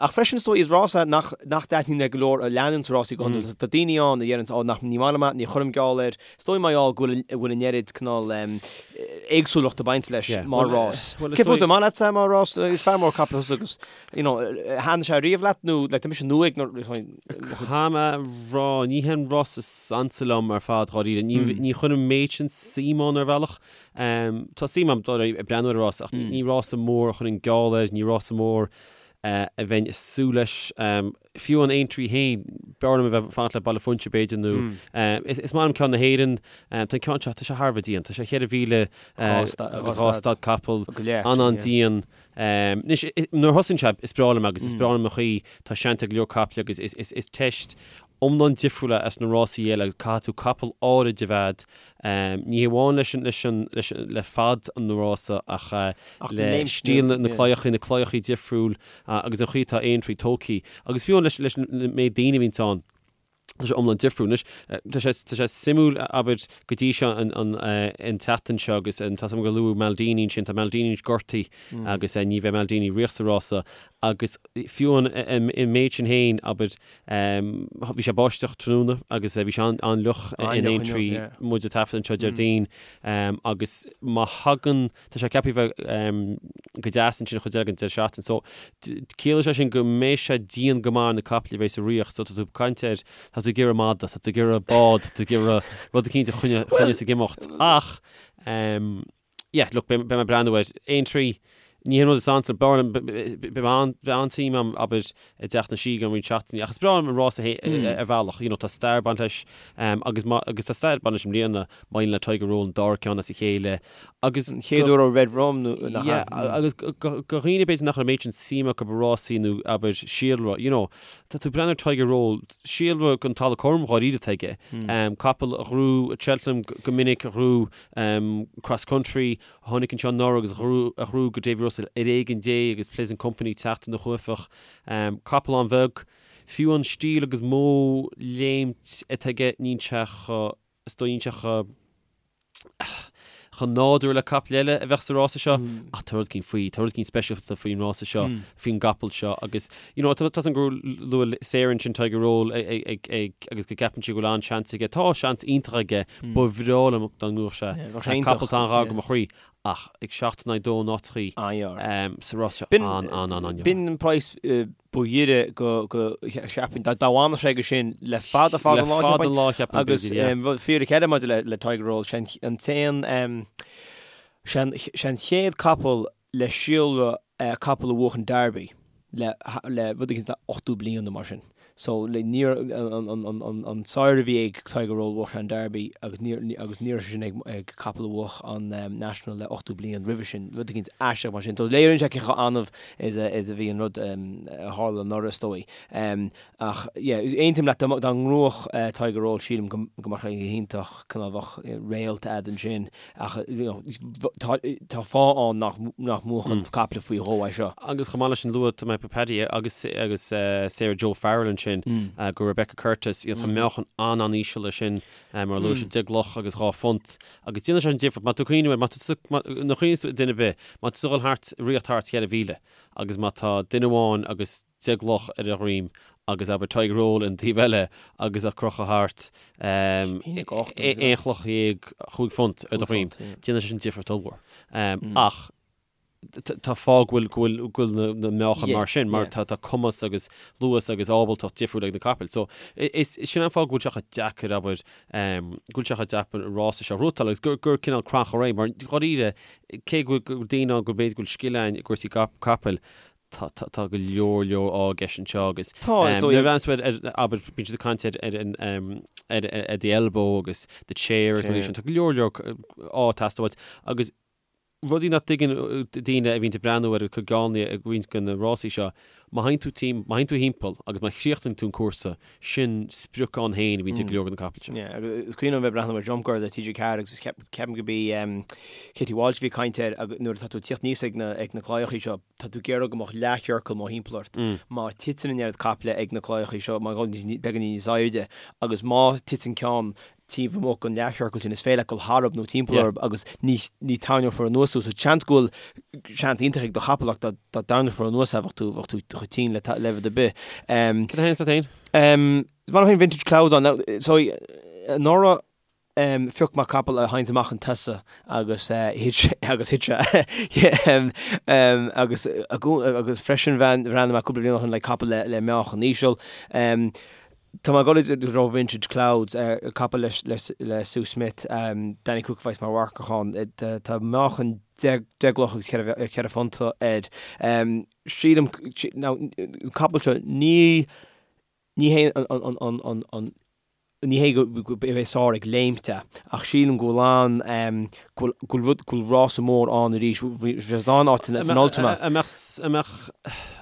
Ach freisin is dóigh is rása nach nach dtaitníonn le go leor a leananns rásaí go hiondúil. Tá daoine ann a dheireanns, ó nach ní maith liom é, ní chuirim geall air. Is dóigh mar gheall go bhfuil bhfuil an oiread cineál éagsúlacht ag baint leis mar rás. Cé fút, an maith leatsa é mar rás? Is fear mór capall thusa agus, you know, thaitnigh sé riamh leat nó like tá mise nua ag na Caithfidh mé a rá, ní hé an rás is ansa liom ar fad, dháiríre. Ní ní chuirim an méid sin suim ann ar bhealach. Tá suim agam dul ag breathnú ar an rás ach ní rása mór a chuirfinn geall air, ní rása mór a bheinn ag súil leis. Fiú an Aintree féin, b'fhearr liom a bheith ag fanacht le Baile Phúinse b'fhéidir nó is maith liom ceann na hÉireann. Tá an ceann seo, tá sé thar a bheith dian. Tá sé 4,000 agus 2 stad capall, an-an-dian. Anois, nuair a thosaíonn sé, is breá liom agus is breá liom an chaoi tá seans ag go leor caiple agus is teist iomlán difriúil é as na rásaí eile agus caithfidh tú capall áirid a bheith ní hamháin leis an, leis an, leis an, le fad an rása ach le stíl na claíochaí, na claíochaí difriúil agus an chaoi atá Aintree tógtha agus fiú leis, leis an méid daoine a bhíonns ann. Tá sé iomlán difriúil. Anois, tá sé, tá sé suimiúil, abair, go dtí seo an, an, an tseachtain seo agus tá 's agam gur luadh Maldini ansin, tá Maldini anois gortaithe agus ní bheidh Maldini riamh sa rása agus fiú an, an méid sin féin, abair, bhí sé ag báisteach tráthnóna agus bhí sé an-fhliuch in Aintree, muid ag taifead anseo Déardaoin agus má thagann, Tá sé ceaptha a bheith go deas ansin an chuid eile den deireadh seachtaine. So, ciallaíonn sé sin go mbeidh sé dian go maith ar na caiple a bheidh sa riocht. So, tá tú ag caint ar, tá tú ag iarraidh mada, tá tú ag iarraidh bád, tá tú ag iarraidh rud eicínt a choinneos ag imeacht. Ach, yeah, look, beidh mé ag breathnú air. Aintree, ní hé an rud is ansa, b'fhearr liom, beidh an-suim agam, abair, i dTeach na Sí i gceann roinnt seachtainí. Ach is breá liom an rása ar bhealach, you know, tá stair ag baint leis, agus má, agus tá stair ag baint leis i mbliana, maidir le Tiger Roll an dara ceann as a chéile, agus. An chéad uair ó Red Rum nó nach ea? Yeah, agus do dhaoine b'fhéidir nach raibh an méid sin suim acu i rásaí nó abair síolra, you know, tá tú ag breathnú ar Tiger Roll, síolra den talamh cothrom dháiríre atá aige, capall a ghnóthaigh at Cheltenham go minic, a ghnóthaigh cross country, a tháinig anseo anuraidh agus a ghnóthaigh go Davy Russell ar éigean Dé agus Pleasant Company teacht ina chuaifeach, capall an-bheag, fiú an stíl agus modh léimt atá aige níl sé chomh, is dóigh níl sé chomh chomh nádúrtha le capall eile a bheadh sa rása seo ach tá rud eicínt faoi, tá rud eicínt speisialta faoin rása seo, faoin gcapall seo agus you know tá 's agam gur luaigh Sarah ansin Tiger Roll ag ag agus go gceapann sí go bhfuil an-seans aige. Tá seans iontach aige, ba bhreá liom dá ngnóthódh sé. Capall atá an-ghar go mo chroí ach ag 7 in aghaidh 2 in áiteachaí sa rás seo an-an-an-an-an. B'in an praghas ba ghiorra go cheapfainn, dá bhfanfadh sé go sin le fada fada an lá, Le fada an lá cheapfainn, Agus rud fíric eile maidir le le Tiger Roll, sé an t-aon sé an chéad capall le síolra capall a bhuach an Derby le le rud éigin le 80 bliain nó mar sin. So le níor an sire a bhí ag Tiger Roll bhuach sé an Derby agus níor agus ní raibh sé sin ag ag capall a bhuach an National le 80 bliain roimhe sin, rud éigin aisteach mar sin. So léiríonn sé cé chomh annamh is a is a bhí an rud a tharla anuraidh is dóigh. Ach yeah, aontaím leat dá dá ngnóthódh Tiger Roll sílim go go mbeadh sé go hiontach cineál bheadh réalt a'd ansin ach you know tá tá fáth ann nach nach mbuachann caiple faoi dhó é seo. Agus chomh maith leis sin luaigh mé Paddy agus agus Sarah Joe Farrell ansin go Rebecca Curtis you know tá meáchan an-an-íseal air sin mar a luaigh sé 10 gcloch agus 2 phunt agus déanann sé an difear má tá tú ag cuimhneamh air má tá tú nuair a chuimhníonns tú duine ar bith má tá tú ag dul thart ritheacht thart 4,000 agus má tá duine amháin agus 10 gcloch ar a dhroim agus abair Tiger Roll ar an taobh eile agus á crochadh thart aon chloch dhéag chúig phunt ar do dhroim. Déanann sé sin difríocht ollmhór. Ach tá fáth go bhfuil go bhfuil go bhfuil na meáchain mar sin mar tá tá cumas agus luas agus ábaltacht difriúil ag na capaill. So is sin an fáth go bhfuil sé chomh deacair abair go bhfuil sé chomh deacair an rása seo a ghnóthachtáil agus gur gur cineál crannchur é mar dháiríre cé go bhfuil daoine ann go b'fhéidir go bhfuil scil ann i gcúrsaí capaill Tá, tá, tá go leor, leor ádh i gceist anseo agus Tá, is dóigh. nuair a bhreathnaíonn tú ar, ar, abair, bíonn siad ag caint ar, ar an, ar, ar the elbow agus the chair agus rudaí sin, tá go leor, leor ádh ag teastáil uait agus rudaí nach dtuigeann daoine a bhíonn ag breathnú ar an gcoigeánaí ag roinnt de na rásaí seo, má théann tú tim, má théann tú thimpeall agus má chríochnaíonn tú an cúrsa, sin sprioc ann féin a bhíonn ag go leor de na capaill seo. Yeah, agus is cuimhin liom a bheith ag breathnú ar Jump Girl le TG4 agus ceapaim go b'í Katie Walsh a bhí ag caint air agus nuair atá tú ag tíocht aníos ag na, ag na claíochaí seo, tá tú ag iarraidh go mbeadh leathchiorcal mórthimpeall ort. Má titeann an oiread caiple ag na claíochaí seo, má beagáinín níos airde, agus má titeann ceann taobh amuigh den leathchiorcal sin, is féidir leat dul tharab nó timpeall orthu agus ní ní tarraingeofar anuas thú. So seans go bhfuil seans iontach ag do chapall ach dá dá dtarraingeofar anuas é bheadh tú bheadh tú chomh tinn le le rud ar bith. Cad a théann leat féin? Is maith liom féin Vintage Clouds ann. Now, so, anuraidh, phioc mé capall a théanns amach chun tosaigh agus thit sé, agus thit sé. Agus, agus freisin bhreathnaigh mé cúpla bliain ó shin le capall le, le meáchan íseal. Tá mé ag dul i dtreo Vintage Clouds, capall le, le, le Sue Smith, Danny Cooke a bheas mar mharcach ann. Tá meáchan 10 gcloch agus 4 phunta air. Sílim, now, an capall seo, ní, Ní hé an ní hé go mbeidh sár ag léimt é, ach sílim go bhfuil an, go bhfuil rud, go bhfuil rása mór ann arís. Bhí sé in ann áit san Ultima. An mbeadh, an mbeadh,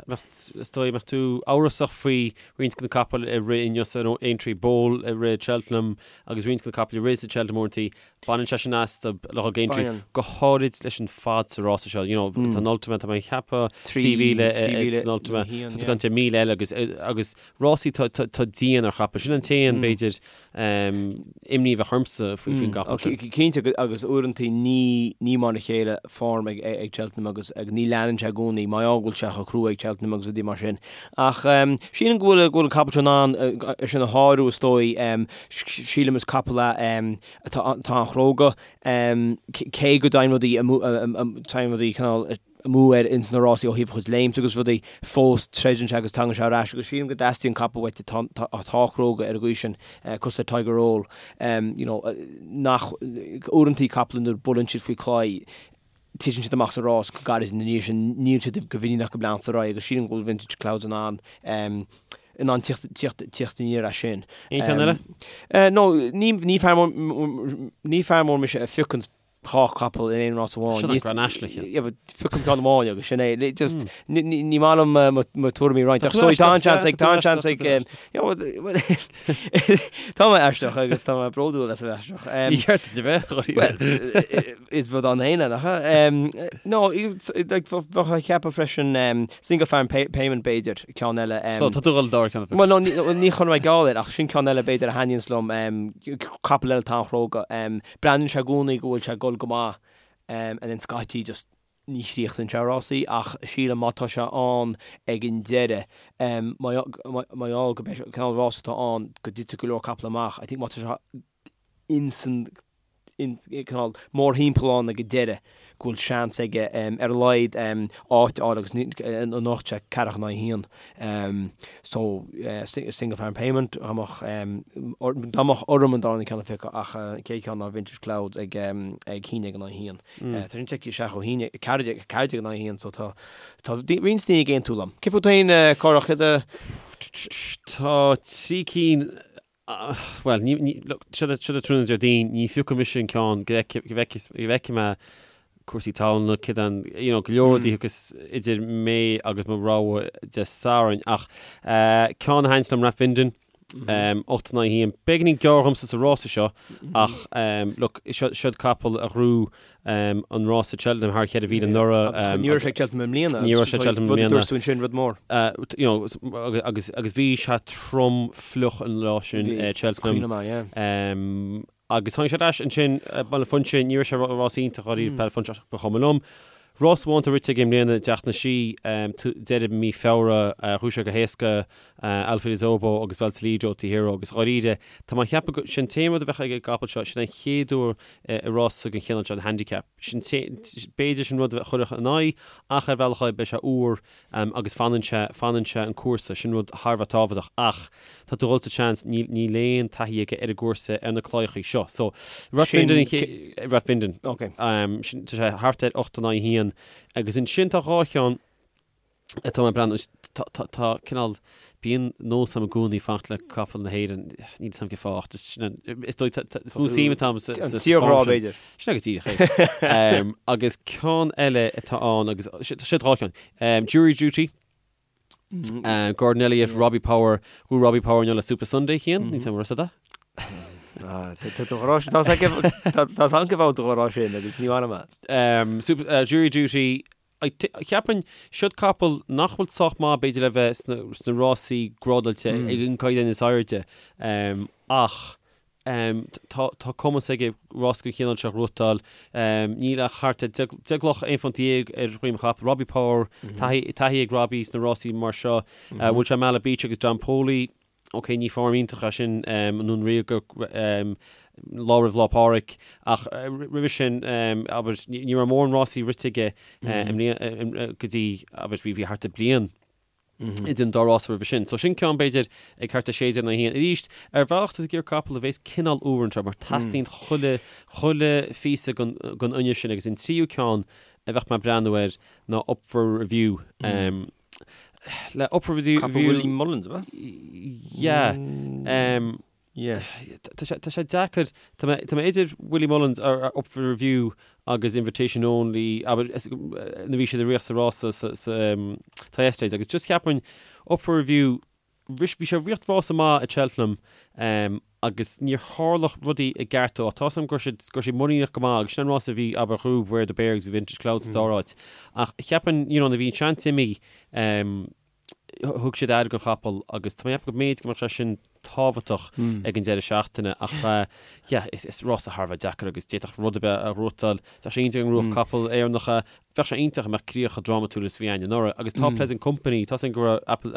mbeadh, is dóigh, mbeadh tú amhrasach faoi roinnt de na capaill a rith inniu san Aintree Bowl a rith Cheltenham agus roinnt de na capaill a rith sa Cheltenham uaireanta, baineann sé sin astu le dhul go Aintree, go háirid leis an fad sa rása seo. You know, tá an Ultima, tá mé ag ceapadh 3,000 san Ultima, tá tú ag caint ar 1,000 eile agus, agus Rásaí atá dian ar chapall. Sin an t-aon, b'fhéidir, imní a bheadh ormsa faoin gcapall sin. Cinnte, agus uaireanta ní mar a chéile form ag Cheltenham agus ní leanann sé i gcónaí, mar gheall go bhfuil sé chomh crua ag Cheltenham agus rudaí mar sin. Ach sílim go bhfuil an capall seo in ann é sin a shárú is dóigh. Sílim is capall é atá an-chróga, cé go dtéann rudaí, téann rudaí cineál, amú air ins na rásaí ó thaobh a chuid léimt agus rudaí, fós troideann sé agus tagann sé ar ais agus sílim go dteastaíonn capall uait atá atá cróga ar an gcaoi sin, cosúil le Tiger Roll, you know, nach, uaireantaí capall nuair buaileann siad faoi claí, titeann siad amach sa rás go gairid ina dhiaidh sin, níl siad go mhuiníneach go leanfaidh ar aghaidh agus sílim go bhfuil Vintage Clouds in ann, in ann tíocht, tíocht, tíocht aniar as sin. Aon cheann eile? No, ní, ní fear mór, ní fear mór mise a phiocann 2 chapall in aon rás amháin. Sin an Grand National cheann. Yeah, but piocaim ceann amháin agus sin é. Just, ní maith liom mo tuairimí a roinnt. Ach tá an seans ag, tá an seans ag, tá mé aisteach agus tá mé bródúil as a bheith aisteach. Ní ceart duit a bheith, Dháiríre. Well, is rud ann féin é, nach ea? No, like, bheadh ag ceapadh freisin Single Farm Payment b'fhéidir, ceann eile. So, tá tú ag dul dár ceann. Well, no, ní chun mé geall air, ach sin ceann eile b'fhéidir a thaitníonns liom, capall eile atá an-chróga. Breathnaíonn sé i gcónaí go bhfuil sé ag dul go maith and then scaití just ní chríochnaíonn sé rásaí ach sílim má tá sé ann ag an deireadh mar gheall go mbeidh cineál rás atá ann go dtitfidh go leor capall amach I think má tá sé insan in cineál mórthimpeall ann ag an deireadh go bhfuil seans aige ar a laghad áit a fháil agus anocht sé ceathracha in aghaidh a haon. So Single Farm Payment dá mbeadh dá mbeadh orm an darna ceann a phiocadh ach an chéad cheann ná Vintage Clouds ag ag haon déag in aghaidh a haon. Tá sin tite isteach ó haon 14 14 in aghaidh a haon so tá tá roinnt daoine ag aontú liom. Cé fút féin Cárthach céard a Tá 3 cinn Bhuel, ní, ní, look, seo é tráthnóna Déardaoin, ní phiocfaidh mise an ceann go bhfeicfidh mé cúrsaí talúna, céard an, you know, go leor rudaí agus idir mé agus mo rogha Dé Sathairn. Ach ceann a thaitníonns liom Rathvinden, 8 in aghaidh 1. Beagáinín gearr dhomsa sa rása seo ach, look, seo, seod capall a ghnóthaigh an rás i Cheltenham thar 4,000 anuraidh. Agus ní raibh sé ag Cheltenham i mbliana. Ní raibh sé ag Cheltenham i mbliana. Rud a dúirt tú ansin, rud mór. You know, agus agus bhí sé trom fliuch an lá sin i Cheltenham. Cuimhin liom, yeah. Agus tháinig sé ar ais ansin, Baile Phúinse, ní raibh sé rás iontach dháiríre Baile Phúinse ach ba chuma liom. Rás amháin atá rite aige i mbliana i dTeach na Sí, deireadh mí Feabhra, ghnóthaigh sé go héasca Alfie Obo agus Valsalido Hero agus dháiríre, tá mé ag ceapadh go, sin an t-aon rud a bheadh ag an gcapall seo, sin an chéad uair i rása den chineál seo, an handicap. Sin b'fhéidir sin rud a chuirfeadh in aghaidh ach ar bhealach eile beidh sé úr agus fanann sé, fanann sé an cúrsa, sin rud thar a bheith tábhachtach ach tá tú ag dul sa tseans, níl, níl aon taithí aige ar an gcúrsa ar na claíochaí seo. So, Rathvinden, Rathvinden, sin, tá sé thart ar 8 in aghaidh 1 agus ansin tá dhá cheann, Tá mé ag breathnú, tá, tá cineál, bíonn nós agam i gcónaí fanacht le capall na hÉireann, níl 'fhios a'm cén fáth ach just sin an, is dóigh, tá, tá, is mó suim atá agam sa, sa, An tírghrá b'fhéidir. Sin é go díreach é. Agus ceann eile atá ann agus, tá siad dhá cheann, Jury Duty, Gordon Elliott, Robbie Power, bhuaigh Robbie Power inniu le Supasundae Cian, níl 'fhios a'm an raibh 'fhios a'd. Tá 'fhios a'm cén fáth tú a rá sin agus ní maith liom é. Jury Duty, Cheapfainn, siod capall nach bhfuil sách maith b'fhéidir le bheith sna rásaí grádáilte ag an gcaighdeán is airde ach tá cumas aige rás den chineál seo a ghnóthachtáil. Níl ach thart ar 10 gcloch, 11 phunt ar dhroim an chapaill. Robbie Power, taithí ag Robbie sna rásaí mar seo. Bhuail sé Mala Beach agus Don Poli. Ok, ní form iontach é sin i nDún Ríoga lá roimh Lá Pádraig ach roimhe sin, abair, ní raibh mórán rásaí rite aige i mbliana go dtí, abair, bhí thart ar bliain idir an dá rása roimhe sin. So sin ceann, b'fhéidir, ag thart ar 16 in aghaidh 1. Arís, ar bhealach tá tú ag iarraidh capall a bhéas cineál úr anseo mar teastaíonn chuile, chuile phíosa den fhuinneamh sin agus an tríú ceann a bheadh mé ag breathnú air ná Up for Review. Le Up for Review... Capall Willie Mullins, ab ea? Yeah. Yeah. Tá sé, tá sé deacair, tá mé, tá mé idir Willie Mullins ar Up for Review agus Invitation Only, abair, nuair a bhí siad ag rith sa rása sa, sa Thyestes agus just cheapfainn Up for Review, bhí sé ag rith rása maith i Cheltenham agus níor tharla rudaí i gceart dó ach tá 's agam go raibh siad, go raibh siad muiníneach go maith agus sin an rása a bhí, abair, ghnóthaigh Beware The Bear agus bhí Vintage Cloud sa dara háit ach cheapfainn, you know, nuair a bhí an seans imithe, thug siad aire don chapall agus tá mé ag ceapadh go mb'fhéidir go mbeadh sé sin tábhachtach ag an deireadh seachtaine ach yeah, is rása thar a bheith deacair agus d'fhéadfadh rud ar bith a ghnóthachtáil. Bheadh sé iontach dá ngnóthódh capall Éireannach é, bheadh sé iontach dá mbeadh críoch chomh drámatúil is a bhí againn anuraidh agus tá Pleasant Company, tá 's againn go raibh Apple,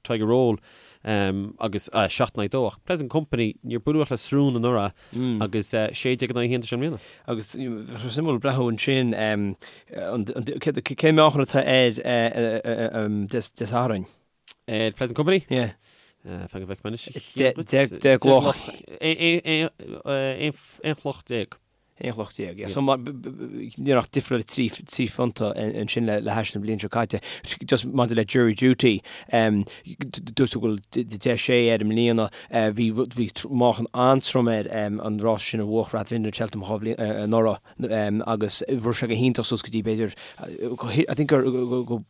Tiger Roll agus 7 in aghaidh 2 ach Pleasant Company, níor buaileadh ach le srón anuraidh agus 16 in aghaidh 1 tá sé i mbliana. Agus bheadh sé suimiúil breathnú ansin cén meáchan atá air Dé Sathairn. Ar Pleasant Company? Yeah. Fan go bhfeicfidh mé anois. 10 gcloch. 11 chloch. 11 chloch, yeah. So níl ach difríocht 3 phunta ansin le hais na bliana seo caite. Just maidir le Jury Duty, dúirt tú go bhfuil 10 sé air i mbliana. Bhí bhí meáchan an-trom air an rás sin a bhuach Rathvinden Cheltenham 2 bhliain anuraidh agus rith sé go hiontach suas go dtí b'fhéidir I think gur go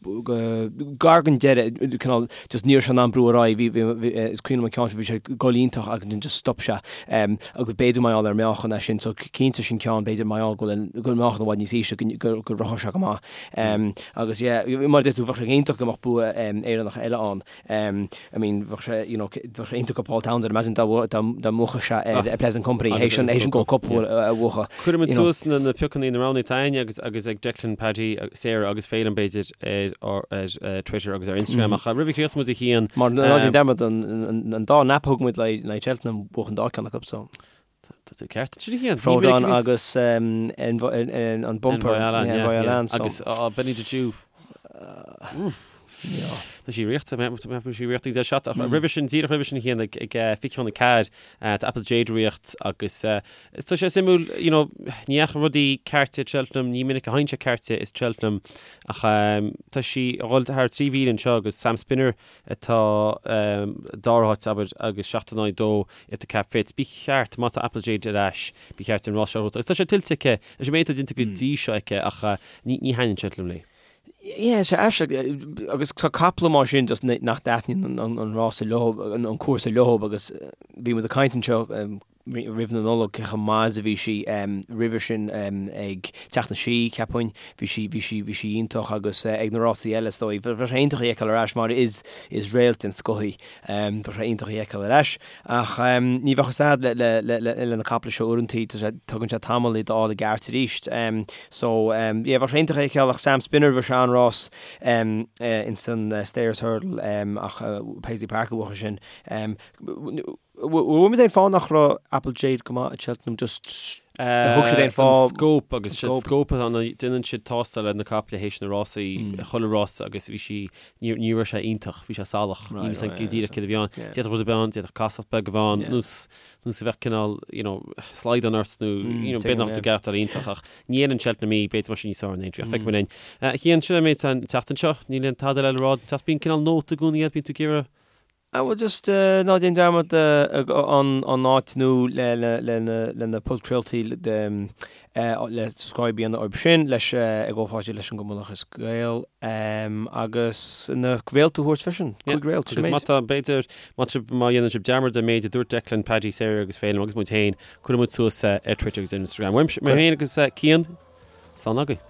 gar don deireadh cineál just ní raibh sé in ann brú ar aghaidh bhí bhí is cuimhin liom an ceann sin bhí sé ag goil iontach agus ansin just stop sé agus b'fhéidir mar gheall ar meáchan é sin so cinnte sin ceann b'fhéidir mar gheall go bhfuil go bhfuil meáchan i bhfad níos ísle go go rithfeadh sé go maith agus yeah mar a deir tú bheadh sé iontach go mbeadh bua Éireannach eile ann. I mean, bheadh sé, you know, bheadh sé iontach do Paul Townend, imagine dá dá mbuafadh sé ar Pleasant Company, théis an théis an Gold Cup a bhuachan. Cuirfimid suas na na piocanna na roghanna atá againne agus agus ag Declan, Paddy, Sarah agus Féilim b'fhéidir ar ar Twitter agus ar Instagram ach roimh a chríochnós muid a Chian. Mar ná déan dearmad an an dá nap a thug muid le le Cheltenham bhuach an dá ceann acu so. Tá tú ceart ansin a Chian. Frodon agus an bumper. Envoi Allen. Agus Benny the Jew. Tá sí riochta, tá sí riochta ag seat ach roimhe sin díreach roimhe sin a Chian ag 24 tá Apple Jade ag riocht agus tá sé suimiúil you know ní dheachaigh rudaí ceart i Cheltenham, ní minic a théann sé ceart i Cheltenham ach tá sí ag dhul thar 3 mhíle anseo agus Sam Spinner atá dara háit abair agus 7 in aghaidh 2 If the Cap Fits. Ba cheart, má tá Apple Jade ar ais, ba cheart an rás seo a ghnóthachtáil. Agus tá sé tuillte aici, leis an méid atá déanta go dtí seo aici ach ní thaitníonn sé liom léi. Yeah, sé aisteach agus tá caiple mar sin just nach dtaitníonn an rása leo, an cúrsa leo agus bhí muid ag caint anseo roimh na Nollag cé chomh maith is a bhí sí roimhe sin ag Teach na Sí, cheapfainn. Bhí sí, bhí sí, bhí sí iontach agus ag na rásaí eile is dóigh. Bheadh sé iontach í a fheiceáil ar ais mar is, is réalt den scoth í. Bheadh sé iontach í a fheiceáil ar ais. Ach ní bheadh fhios a'd le, le, le, le na caiple seo uaireantaí, tá sé, tugann sé tamall iad a fháil i gceart arís. So, yeah, bheadh sé iontach í a fheiceáil ach Sam Spinner, bhí sé an-rás ins an Stayers Hurdle ach Paisley Park a bhuaigh sin. Bhfuil muid aon fáth nach raibh Apple Jade go maith i Cheltenham just ar thug siad aon fáth? An scóp agus siad scóp atá ann déanann siad tástáil ar na caiple théis na rásaí chuile rása agus bhí sí ní ní raibh sé iontach bhí sé salach níl fhios go díreach céard a bhí ann d'fhéadfadh rud a bheith ann d'fhéadfadh casacht beag a bheith ann nós nós a bheadh cineál you know slaghdán ort nó you know b'fhéidir nach tú gceart iontach ach ní fhéileann Cheltenham í b'fhéidir mar sin níos fearr in Aintree ach feicfidh muid linn. Cian sin an méid an tseachtain seo níl aon tada eile le rá bíonn cineál nóta i gcónaí bíonn tú ag iarraidh Ah well just ná déan dearmad an áit nó le na podchraoltaí le subscribe a dhéanamh orthu sin leis i gcomhpháirtíocht leis an gCumann Lúthchleas Gael agus na réalta a thabhairt freisin, 5 réalt, sin Agus má tá, b'fhéidir, má má dhéanann sibh dearmad an méid a dúirt Declan, Paddy, Sarah agus Féilim agus muid féin, cuirfidh muid suas ar Twitter agus Instagram. Uaimse, mé féin agus Cian, slán agaibh.